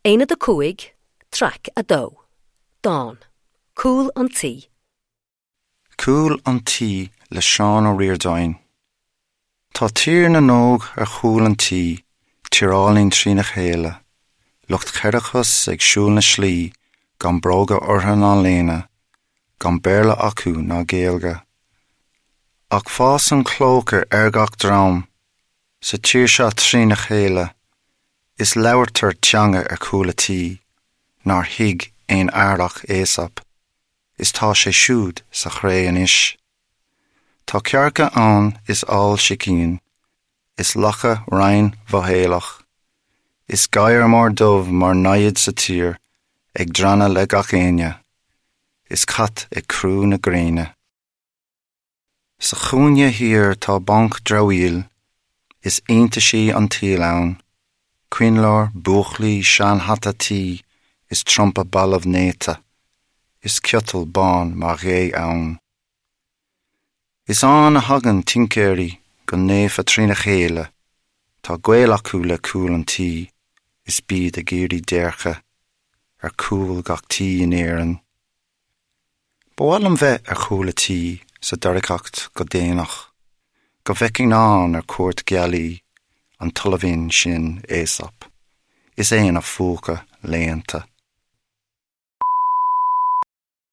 Aonad 5, Traic 2, Dán, Cúl an Tí. Cúl an Tí le Seán Ó Ríordáin. Tá Tír na nÓg ar chúl an tí, tír álainn trína chéile, lucht cheithre chos ag siúl na slí gan bróga orthu ná léine, gan Béarla acu ná Gaeilge. Ach fásann clóca ar gach drom sa tír seo trína chéile is labhartar teanga ar chúl a tí nár thuig aon fhear ach Aesop, is tá sé siúd sa chré anois. Tá cearca ann is ál sicín, is lacha righin mhothaolach, is gadhar mór dubh mar namhaid sa tír ag drannadh le gach éinne, is cat ag crú na gréine. Sa chúinne thiar tá banc dramhaíl, is iontaisí an tsaoil ann, coinnleoir, búclaí, seanhata tí is trumpa balbh néata, is ciotal bán mar ghé ann. Is ann a thagann tincéirí go naofa trína chéile, tá gaol acu le cúl an tí is bíd ag iarraidh déirce ar chúl gach tí in Éirinn. Ba mhaith liom bheith ar chúl a tí sa doircheacht go déanach, go bhfeicfinn ann ar cuairt gealaí an tSoilbhinn sin Aesop, is é ina phúca léannta.